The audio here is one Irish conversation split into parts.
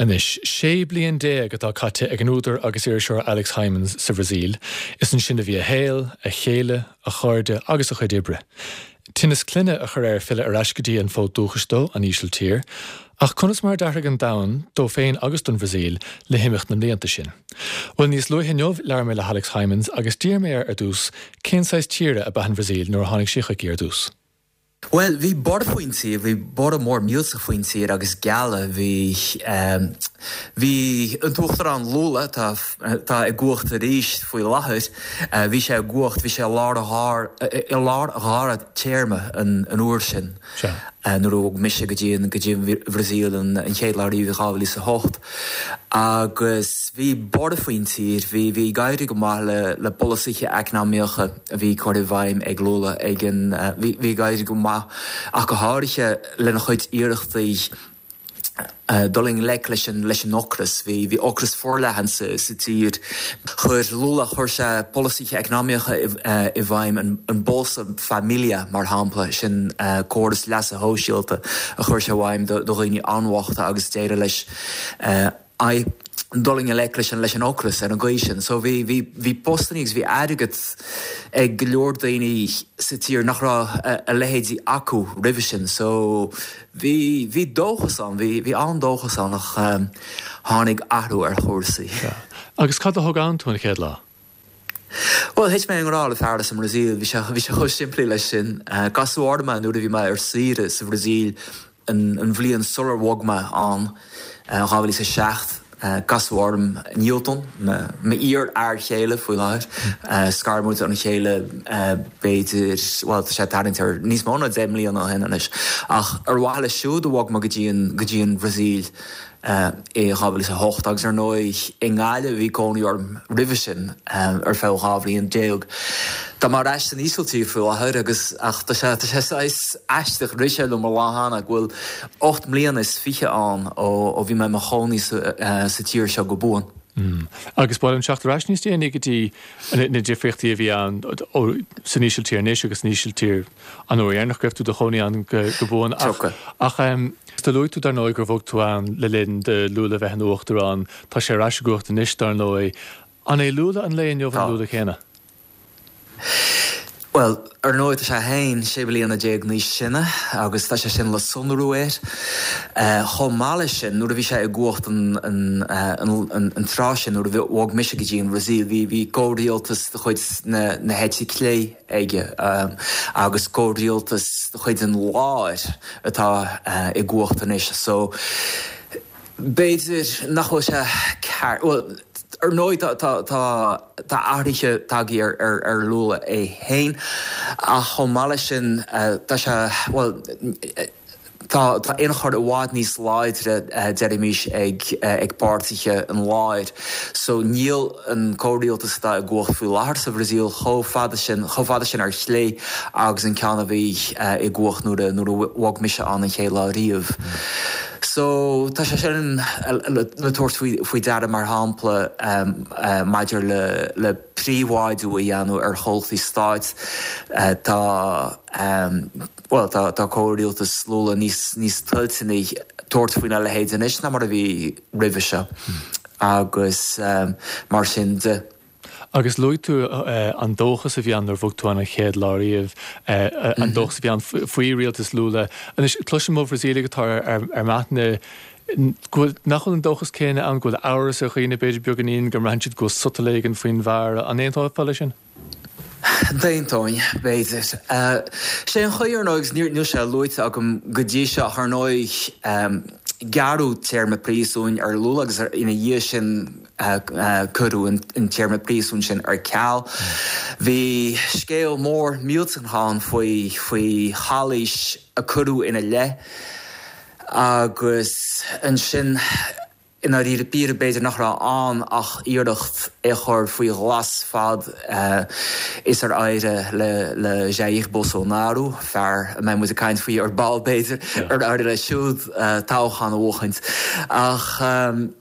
Anois, 16 bliain atá caite ag an údar agus iriseoir Alex Hijmans sa Bhrasaíl. Is ansin a bhí a shaol, a chéile, a chairde agus a chuid oibre. Tinneas clainne a chuir air filleadh ar ais go dtí an fód dúchais dó, an Ísiltír. Ach conas mar a d'athraigh an domhan, dó féin agus don Bhrasaíl, le himeacht na mblianta sin? Bhuel, níos luaithe inniu labhair mé le hAlex Hijmans agus d'iarr mé air ar dtús cén saghas tíre ab ea an Bhrasaíl nuair a tháinig sé chuici ar dtús. Bhuel, bhí borradh faoin tír, bhí borradh mór millteach faoin tír agus gealladh, bhí, bhí an tUachtarán Lula, atá, atá i gcumhacht arís faoi láthair, bhí sé i gcumhacht, bhí sé i lár a dhár, i lár a dhara téarma an, an uair sin. Sea. Nuair a bhog mise go dtí an, go dtí an Bhrasaíl an, an chéad lá riamh i 2008. Agus bhí borradh faoin tír, bhí, bhí ag éirí go maith le, le polasaithe eacnamaíocha, a bhí curtha i bhfeidhm ag Lula ag an bhí ag éirí go maith ach go háirithe lena chuid iarrachtaí dul i ngleic leis an leis an ocras. Bhí bhí ocras forleathan sa sa tír. Chuir Lula chuir sé polasaithe eacnamaíocha i i bhfeidhm an an Bolsa Família mar shampla, sin córas leasa shóisialta a chuir sé i bhfeidhm do do dhaoine an-bhochta agus d'éirigh leis aghaidh dul i ngleic leis an leis an ocras ar an gcaoi sin. So bhí bhí bhí postannaí agus bhí airgead ag go leor daoine sa tír nach raibh a leithéidí acu roimhe sin. So bhí bhí dóchas ann, bhí bhí an-dóchas ann ach tháinig athrú ar chúrsaí. Sea. Agus cad a thug ann tú an chéad lá? Bhuel, thit mé i ngrá le fear as an mBrasaíl, bhí sé bhí sé chomh simplí leis sin. Casadh orm é nuair a bhí mé ar saoire sa Bhrasaíl an bhliain sular bhog mé ann, 2007. Casadh orm Nilton, m'iar-fhear chéile faoi láthair. Scar muid óna chéile b'fhéidir, bhuel tá sé ag tarraingt ar níos mó ná 10 mbliana ó shin anois. Ach ar mhaithe leis siúd a bhog mé go dtí an go dtí an Bhrasaíl. i 2008 agus ar ndóigh i nGaillimh a bhí cónaí orm roimhe sin ar feadh 12 bhliain. Tá mé ar ais san Ísiltír faoi láthair agus ach tá sé tá sé saghas aisteach, rith sé liom an lá cheana go bhfuil 8 mbliana is fiche ann ó ó bhí mé i mo chónaí sa sa tír seo go buan. Agus ba mhaith liom teacht ar ais níos déanaí go dtí na difríochtaí a bhí ann san Ísiltír anois agus san Ísiltír an uair dheireanach go raibh tú i do chónaí ann go buan. Ach do luaigh tú dar ndóigh gur bhog tú ann le linn do Lula bheith ina uachtarán. Tá sé ar ais i gcumhacht anois dar ndóigh. An é Lula an lae inniu an Lula céanna? Bhuel, ar ndóigh tá sé féin 16 bliana níos sine agus tá sé sin le sonrú air. Chomh maith leis sin, nuair a bhí sé i gcumhacht an tráth sin, nuair a bhog mise go dtí an Bhrasaíl, bhí bhí comhrialtas de chuid na heite clé aige agus comhrialtas de chuid an láir atá i gcumhacht anois. So. B'fhéidir nach bhfuil sé ceart, bhuel, ar ndóigh tá, tá, tá, tá athruithe tagtha ar, ar, ar Lula é féin ach chomh maith leis sin tá sé, bhuel, tá, tá ionchur i bhfad níos láidre, deirimis, ag, ag páirtithe an láir. So níl an comhrialtas atá i gcumhacht faoi láthair sa Bhrasaíl chomh fada sin, chomh fada sin ar chlé agus an ceann a bhí i gcumhacht nuair a, nuair a bhog mise ann an chéad lá riamh. So, tá sé sin le tabhairt faoi deara, mar shampla, maidir le príobháidiú a dhéanamh ar chomhlachtaí stáit. Tá, bhuel, tá comhrialtas Lula níos níos toilteanaí tabhairt faoina leithéid anois ná mar a bhí roimhe seo agus mar sin de. Agus luaigh tú an dóchas a bhí ann nuair a bhog tú ann an chéad lá riamh, an dóchas a bhí ann faoi rialtas Lula. Anois, cloisim ó Bhrasaíligh atá ar m'aithne go bhfuil, nach bhfuil an dóchas céanna ann, go bhfuil amhras ar dhaoine, b'fhéidir beagáinín, go mbraitheann siad go bhfuil sotal éigin faoin bhfear. An aontófá leis sin? D'aontóinn, b'fhéidir. Sé an chaoi, ar ndóigh, agus níl sé luaite agam go dtí seo ach ar ndóigh, gearradh téarma príosúin ar Lula agus ina dhiaidh sin, Cuireadh an téarma príosúin sin ar ceal. Bhí scéal mór millteach ann faoi faoi chalaois a cuireadh ina leith agus ansin i ndáiríre píre b'fhéidir nach raibh ann ach iarracht é a chur faoi ghlas fad is ar éirigh le Jair Bolsonaro, fear a mbeidh muid ag caint faoi ar ball b'fhéidir, ar éirigh leis siúd toghchán a bhuachaint. Ach.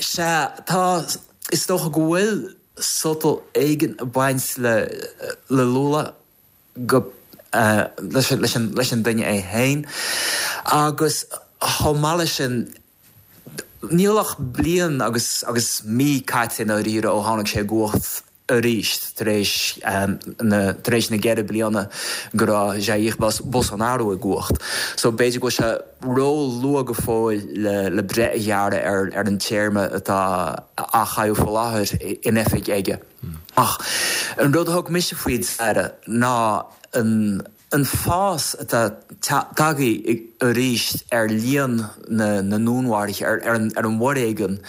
Sea, tá, is dócha go bhfuil sotal éigin ag baint le le Lula, go, leis an, leis an duine é féin. Agus chomh maith leis sin, Níl ach bliain agus agus mí caite i ndáiríre ó tháinig sé i gcumhacht arís tar éis na tar éis na gceithre bliana go raibh Jair Bolsonaro i gcumhacht. So b'fhéidir go bhfuil sé ró-luath go fóill le le breith a ghearradh ar ar an téarma atá á chaitheamh faoi láthair in oifig aige. Ach an rud a thug mise faoi deara ná an An fás atá tagtha arís ar líon na ndúnmharuithe, ar an bhforéigean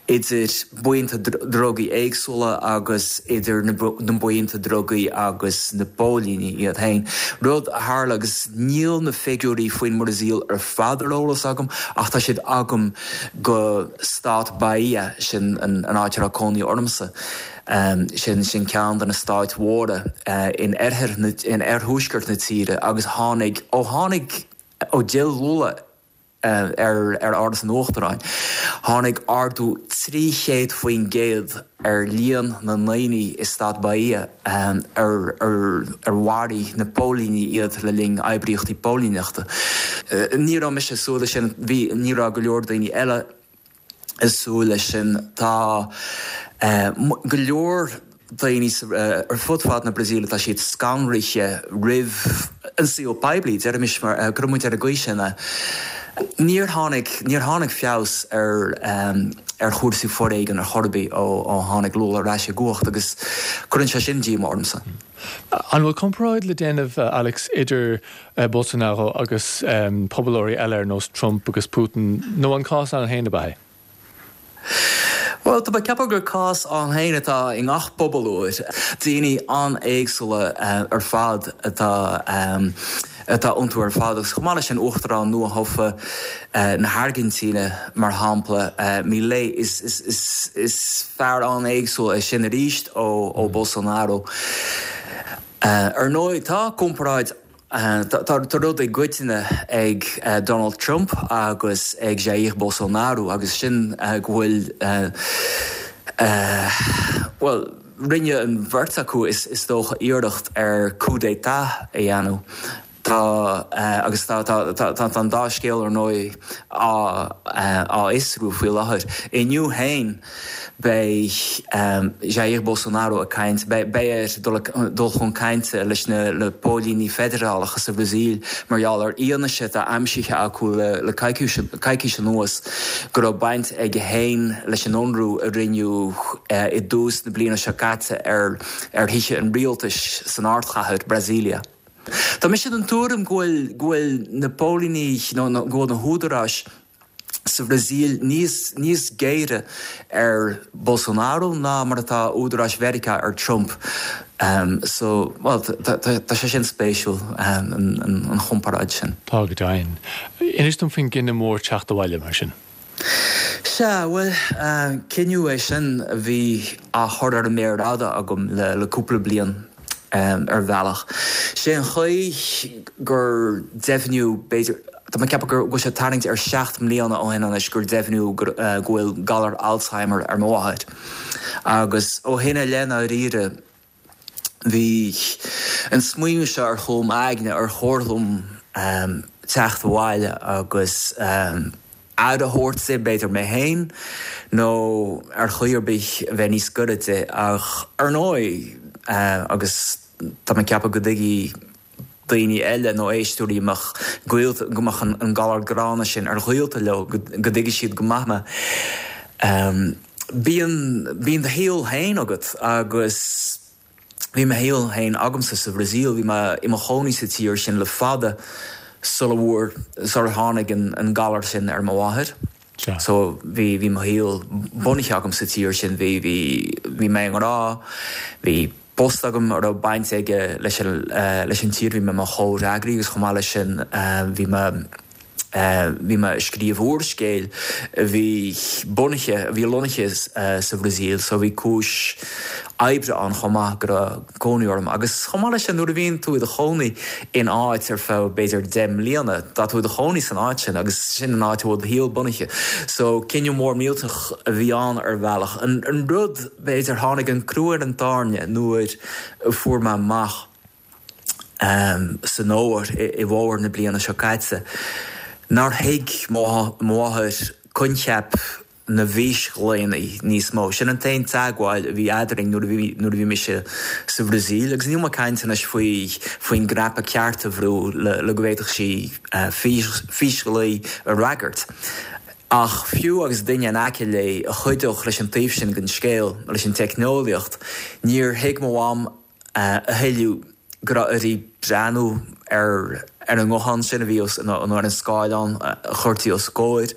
idir buíonta drugaí éagsúla agus idir na buíonta drugaí agus na póilíní iad féin, rud a tharla agus níl na figiúirí faoin mBrasaíl ar fad ar eolas agam ach tá siad agam go stát Bahia, sin an áit a raibh cónaí ormsa. Sin sin ceann de na stáit mhóra in oirthear na, in oirthuaisceart na tíre agus tháinig, ó tháinig, ó d'fhill Lula ar ar Áras an Uachtaráin, tháinig ardú 300% ar líon na ndaoine i stát Bahia ar ar ar mharaigh na póilíní iad le linn oibríochtaí póilíneachta. Ní raibh mise ag súil leis sin, bhí, ní raibh go leor daoine eile ag súil leis sin. Tá go leor daoine ar fud fad na Brasaíle, tá siad scanraithe roimh an saol poiblí, deirimis mar, cuirfidh muid ar an gcaoi sin é. Níor tháinig, níor tháinig feabhas ar ar chúrsaí foréigin ar chor ar bith ó ó tháinig Lula ar ais i gcumhacht agus cuireann sé sin díomá ormsa. An bhfuil comparáid le déanamh, Alex, idir Bolsonaro agus pobalóirí eile ar nós Trump agus Putin, nó an cás ann féin ab ea é? Bhuel, tá mé ag ceapadh gur cás ann féin atá i ngach pobalóir. Daoine an-éagsúla ar fad atá atá iontu ar fad agus chomh maith leis sin Uachtarán nua-thofa na hAirgintíne, mar shampla, Milei, is is is fear an-éagsúil é sin arís ó ó Bolsonaro. Ar ndóigh, tá comparáid Tá rud i gcoitinne ag Donald Trump agus ag Jair Bolsonaro agus sin go bhfuil, bhuel, rinne an bheirt acu is dócha iarracht ar coup d'état a dhéanamh. Tá, agus tá, tá an dá scéal ar ndóigh á fhiosrú faoi láthair. Inniu féin, Beidh Jair Bolsonaro ag caint, beidh air dul chun cainte leis na póilíní feidearálacha sa Bhrasaíl mar gheall ar fhianaise atá aimsithe acu le coicís anuas go raibh baint aige féin leis an ionradh a rinneadh i dtús na bliana seo caite ar thithe an rialtais san ardchathair, Brasília. Tá mise den tuairim go bhfuil na póilíní nó go bhfuil na húdaráis, sa Bhrasaíl níos níos géire ar Bolsonaro ná mar atá údaráis Mheiriceá ar Trump. So, bhuel, tá sé sin spéisiúil, an chomparáid sin. Tá go deimhin. Inis dom faoin gcinneadh mór teacht abhaile, mar sin. Sea, bhuel, cinneadh é sin a bhí á chur ar an méar fhada agam le cúpla bliain ar bhealach. Sé an chaoi gur deimhníodh, b'fhéidir, Tá mé ag ceapadh go bhfuil sé ag tarraingt ar sheacht mbliana ó shin anois gur deimhníodh go bhfuil galar Alzheimer ar mo mháthair. Agus ó shin i leith, ndáiríre, bhí an smaoineamh seo ar chúl m'aigne, ar chóir dom teacht abhaile agus aire a thabhairt di, b'fhéidir mé féin, nó ar chaoi ar bith a bheith níos gaire di. Ach ar ndóigh, agus tá mé ag ceapadh go dtuigfidh daoine eile nó éisteoirí a mbeadh gaolta, go mbeadh an galar gránna sin ar ghaolta leo, go dtuigfidh siad go maith mé. Bíonn, bíonn do shaol féin agat agus bhí mo shaol féin agamsa sa Bhrasaíl, bhí mé i mo chónaí sa tír sin le fada sula bhfuair, sular tháinig an galar sin ar mo mháthair. So bhí, bhí mo shaol bunaithe agam sa tír sin, bhí, bhí, bhí mé i ngrá, bhí post agam a raibh baint aige leis an, leis an tír, bhí mé i mo chomhfhreagraí agus chomh maith leis sin bhí mé, bhí mé ag scríobh úrscéil a bhí bunaithe, a bhí lonnaithe sa Bhrasaíl so bhí cúis oibre ann chomh maith go raibh cónaí orm. Agus chomh maith leis sin nuair a bhíonn tú i do chónaí in áit ar feadh b'fhéidir 10 mbliana, tá tú i do chónaí san áit sin agus sin an áit a bhfuil do shaol bunaithe. So cinneadh mór millteach a bhí ann ar bhealach. An rud, b'fhéidir, tháinig an crú ar an tairne nuair a fuair mé amach san fhómhar, i bhfómhar na bliana seo caite, nár thuig mo mháthair coincheap. na bhfísghlaonna níos mó. Sin an t-aon teagmháil a bhí eadrainn nuair a bhí nuair a bhí mise sa Bhrasaíl agus níl mé ag caint anois faoi faoin gcnaipe ceart a bhrú le le go bhféadfadh sí fís físghlao a fhreagairt. Ach fiú agus duine in aice léi a chuideodh leis an taobh sin den scéal, leis an teicneolaíocht, níor thuig mo mham a thuilleadh go raibh uirthi breathnú ar an nguthán sin a bhí os, nó ar an scáileán a chuirtí os a comhair.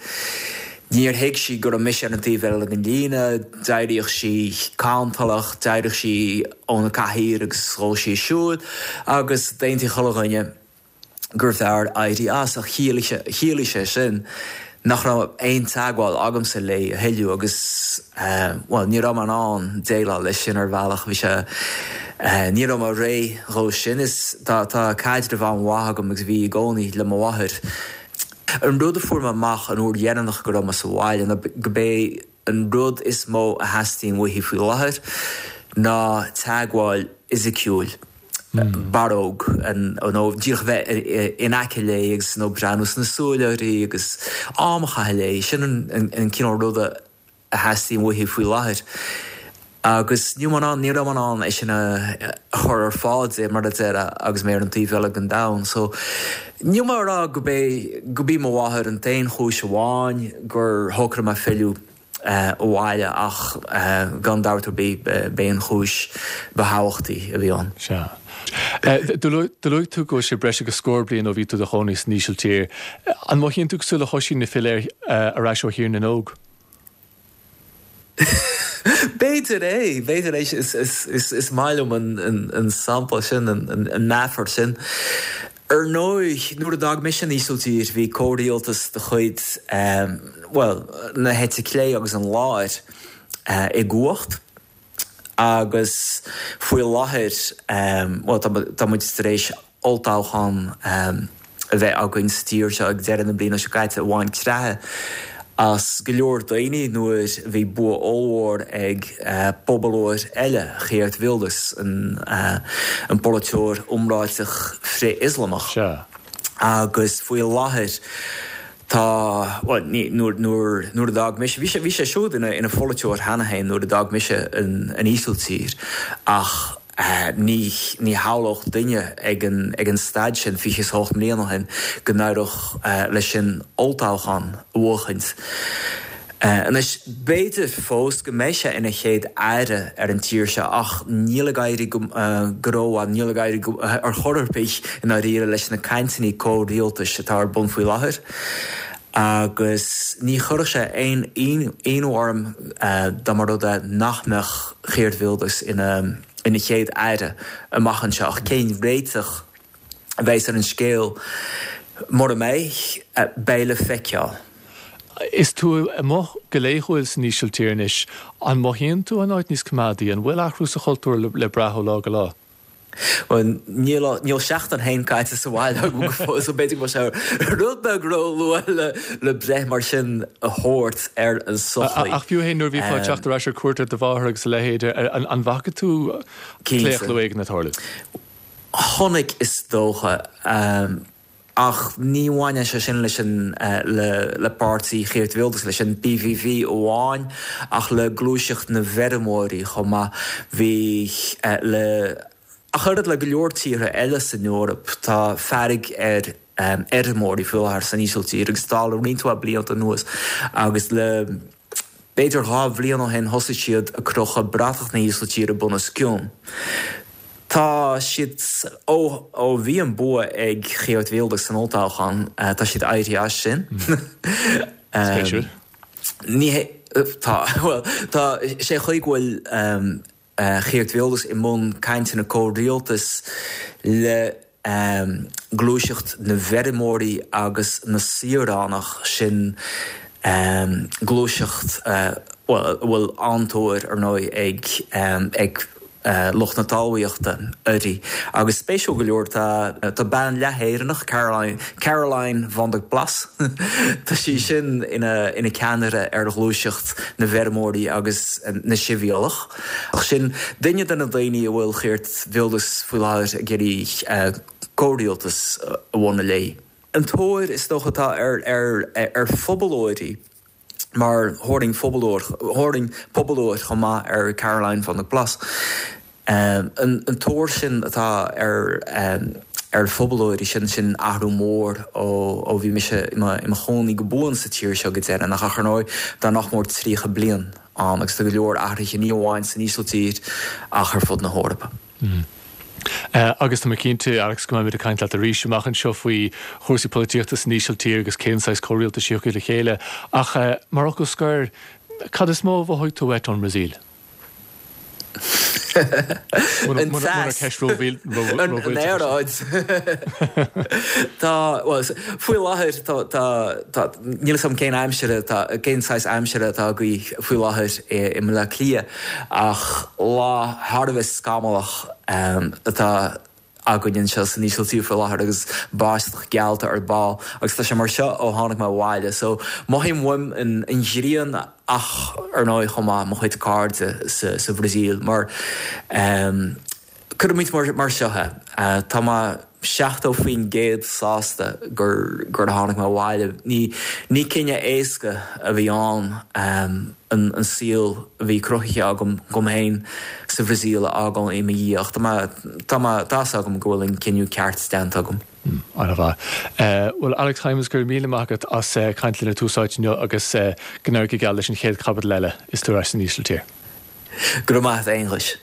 Níor thuig sí go raibh mise ar an taobh eile den líne, d'éiríodh sí cantalach, d'éiríodh sí óna cathaoir agus ghabhadh sí ag siúl agus d'aontaigh chuile dhuine. gurbh fhearr éirí as ach chiallaigh sé sin nach raibh aon teagmháil agamsa léi a thuilleadh agus, bhuel, ní raibh mé in ann déileáil leis sin ar bhealach, bhí sé, ní raibh mé réidh dhó sin. Is tá, tá caidreamh an-mhaith agam agus bhí i gcónaí le mo mháthair. An rud a fuair mé amach an uair dheireanach go raibh mé sa bhaile ná go b'é an rud is mó a theastaíonn uaithi faoi láthair ná teagmháil fhisiciúil, barróg, nó díreach a bheith in aice léi agus nó breathnú sna súile uirthi agus am a chaitheamh léi. Sin an cineál ruda a theastaíonn uaithi faoi láthair. Agus níl mé in ann, ní raibh mé in ann é sin a chur ar fáil di, mar a déarfá, agus mé ar an taobh eile den domhan. So, níl mé ag rá go b'é, go b'í mo mháthair an t-aon chúis amháin gur shocraigh mé filleadh abhaile ach gan dabht ar bith b'é an chúis ba thábhachtaí a bhí ann. Sea. Do luaigh tú go bhfuil sé breis agus scór bliain ó bhí tú i do chónaí san Ísiltír. An mothaíonn tú cosúil le hOisín ag filleadh ar ais ó Thír na nÓg? B'fhéidir é, b'fhéidir é. Is maith liom an sampla sin, an meafar sin. Ar ndóigh, nuair a d'fhág mise an Ísiltír, bhí comhrialtas de chuid, bhuel, na heite clé agus an láir i gcumhacht agus faoi láthair, bhuel, tá muid tar éis olltoghchán a bheith againn sa tír seo ag deireadh na bliana seo caite a bhain creathadh as go leor daoine nuair a bhí bua ollmhór ag pobalóir eile, Geert Wilders, an polaiteoir iomráiteach frith-Ioslamach. Agus faoi láthair tá, bhuel, ní, nuair, nuair, nuair a d'fhág mise, bhí sé, bhí sé siúd ina, ina pholaiteoir cheana féin nuair a d'fhág mise an, an Ísiltír ach, Ní shamhlódh duine ag an staid sin, 28 mbliana ó shin, go n-éireodh leis sin olltoghchán a bhuachaint. Anois, b'fhéidir fós go mbeidh sé ina chéad aire ar an tír seo ach níl ag éirí go rómhaith, níl ag éirí ar chor ar bith i ndáiríre leis na cainteanna comhrialtais atá ar bun faoi láthair. Agus ní chuirfeadh sé aon ionadh orm dá mba rud é nach mbeadh Geert Wilders ina chéad aire amach anseo. Ach cén réiteach a bheas ar an scéal mura mbeidh, beidh le feiceáil. Is tú amuigh go laethúil san Ísiltír anois. An mothaíonn tú an áit níos coimeádaí? An bhfuil athrú sa chultúr le brath ó lá go lá? Bhuel, níl, níl seachtain féin caite sa bhaile agam go fóill, so b'fhéidir go bhfuil sé rud beag ró-luath le, le breith mar sin a thabhairt ar an sochaí. Ach fiú féin nuair a bhífeá ag teacht ar ais ar cuairt ar do mháthair agus a leithéid, an, an bhfaca tú claochlú éigin ag tarlú? Chonaic, is dócha. Ach ní bhaineann sé sin leis an le páirtí Geert Wilders, leis an PVV amháin, ach le gluaiseacht na bhfeirmeoirí chomh maith. Bhí le ach oiread le go leor tíortha eile san Eoraip, tá fearg ar fheirmeoirí faoi láthair san Ísiltír agus tá le roinnt mhaith blianta anuas agus le B'fhéidir 2 bhliain ó shin thosaigh siad ag crochadh bratach na hÍsiltíre bunoscionn. Tá siad, ó ó bhí an bua ag Geert Wilders san olltoghchán, tá siad éirithe as sin. Spéisiúil. Ní hé, tá, bhuel, tá, sé chaoi go bhfuil Geert Wilders i mbun cainteanna comhrialtais le gluaiseacht na bhfeirmeoirí agus na saoránach, sin gluaiseacht a bhfuil an-tóir, ar ndóigh, ag lucht na talmhaíochta uirthi. Agus spéisiúil go leor, tá bean leath-Éireannach, Caroline, Caroline van der Plas, tá sí sin ina ceannaire ar ghluaiseacht na bhfeirmeoirí agus na sibhialtach. Ach sin duine de na daoine a bhfuil Geert Wilders faoi láthair ag iarraidh comhrialtas a bhunú léi. An tóir is dócha atá ar phobalóirí. Mar thabharfainn pobalóir, thabharfainn pobalóir chomh maith ar Caroline van der Plas. An tóir sin atá ar ar phobalóirí, sin sin athrú mór ó bhí mise i mo chónaí go buan sa tír seo go deireanach. Ach ar ndóigh, tá nach mór 30 bliain ann agus tá go leor athruithe ní amháin san Ísiltír ach ar fud na hEorpa. Agus tá mé cinnte, Alex, go mbeimid ag caint leat arís amach anseo faoi chúrsaí polaitíochta san Ísiltír agus cén saghas comhrialtais a thiocfaidh le chéile. Ach mar fhocal scoir, cad is mó a mhothaigh tú uait ón mBrasaíl? An teas. An aeráid. Tá, bhuel, faoi láthair tá, tá, tá, níl 'fhios agam cén aimsir atá, cén saghas aimsire atá agaibh faoi láthair i mBleá Cliath ach lá thar a bheith scamallach atá againn anseo san Ísiltír faoi láthair agus báisteach geallta ar ball agus tá sé mar seo ó tháinig mé abhaile so mothaím uaim an ghrian ach ar ndóigh chomh maith mo chuid cairde sa Bhrasaíl mar cuirfimid mar seo é tá mé 70% sásta gur gur tháinig mé abhaile. Ní ní cinneadh éasca a bhí ann an an saol a bhí cruthaithe agam dom féin sa Bhrasaíl a fhágáil i mo dhiaidh ach tá mé tá mé tá 'fhios agam go bhfuil an cinneadh ceart déanta agam. An-mhaith. Bhuel, Alex Hijmans, go raibh míle maith agat as caint linn ar Tús Áite inniu agus go n-éirí go geal leis an chéad chaibidil eile is tú ar ais san Ísiltír. Go raibh maith agat, a Aonghuis.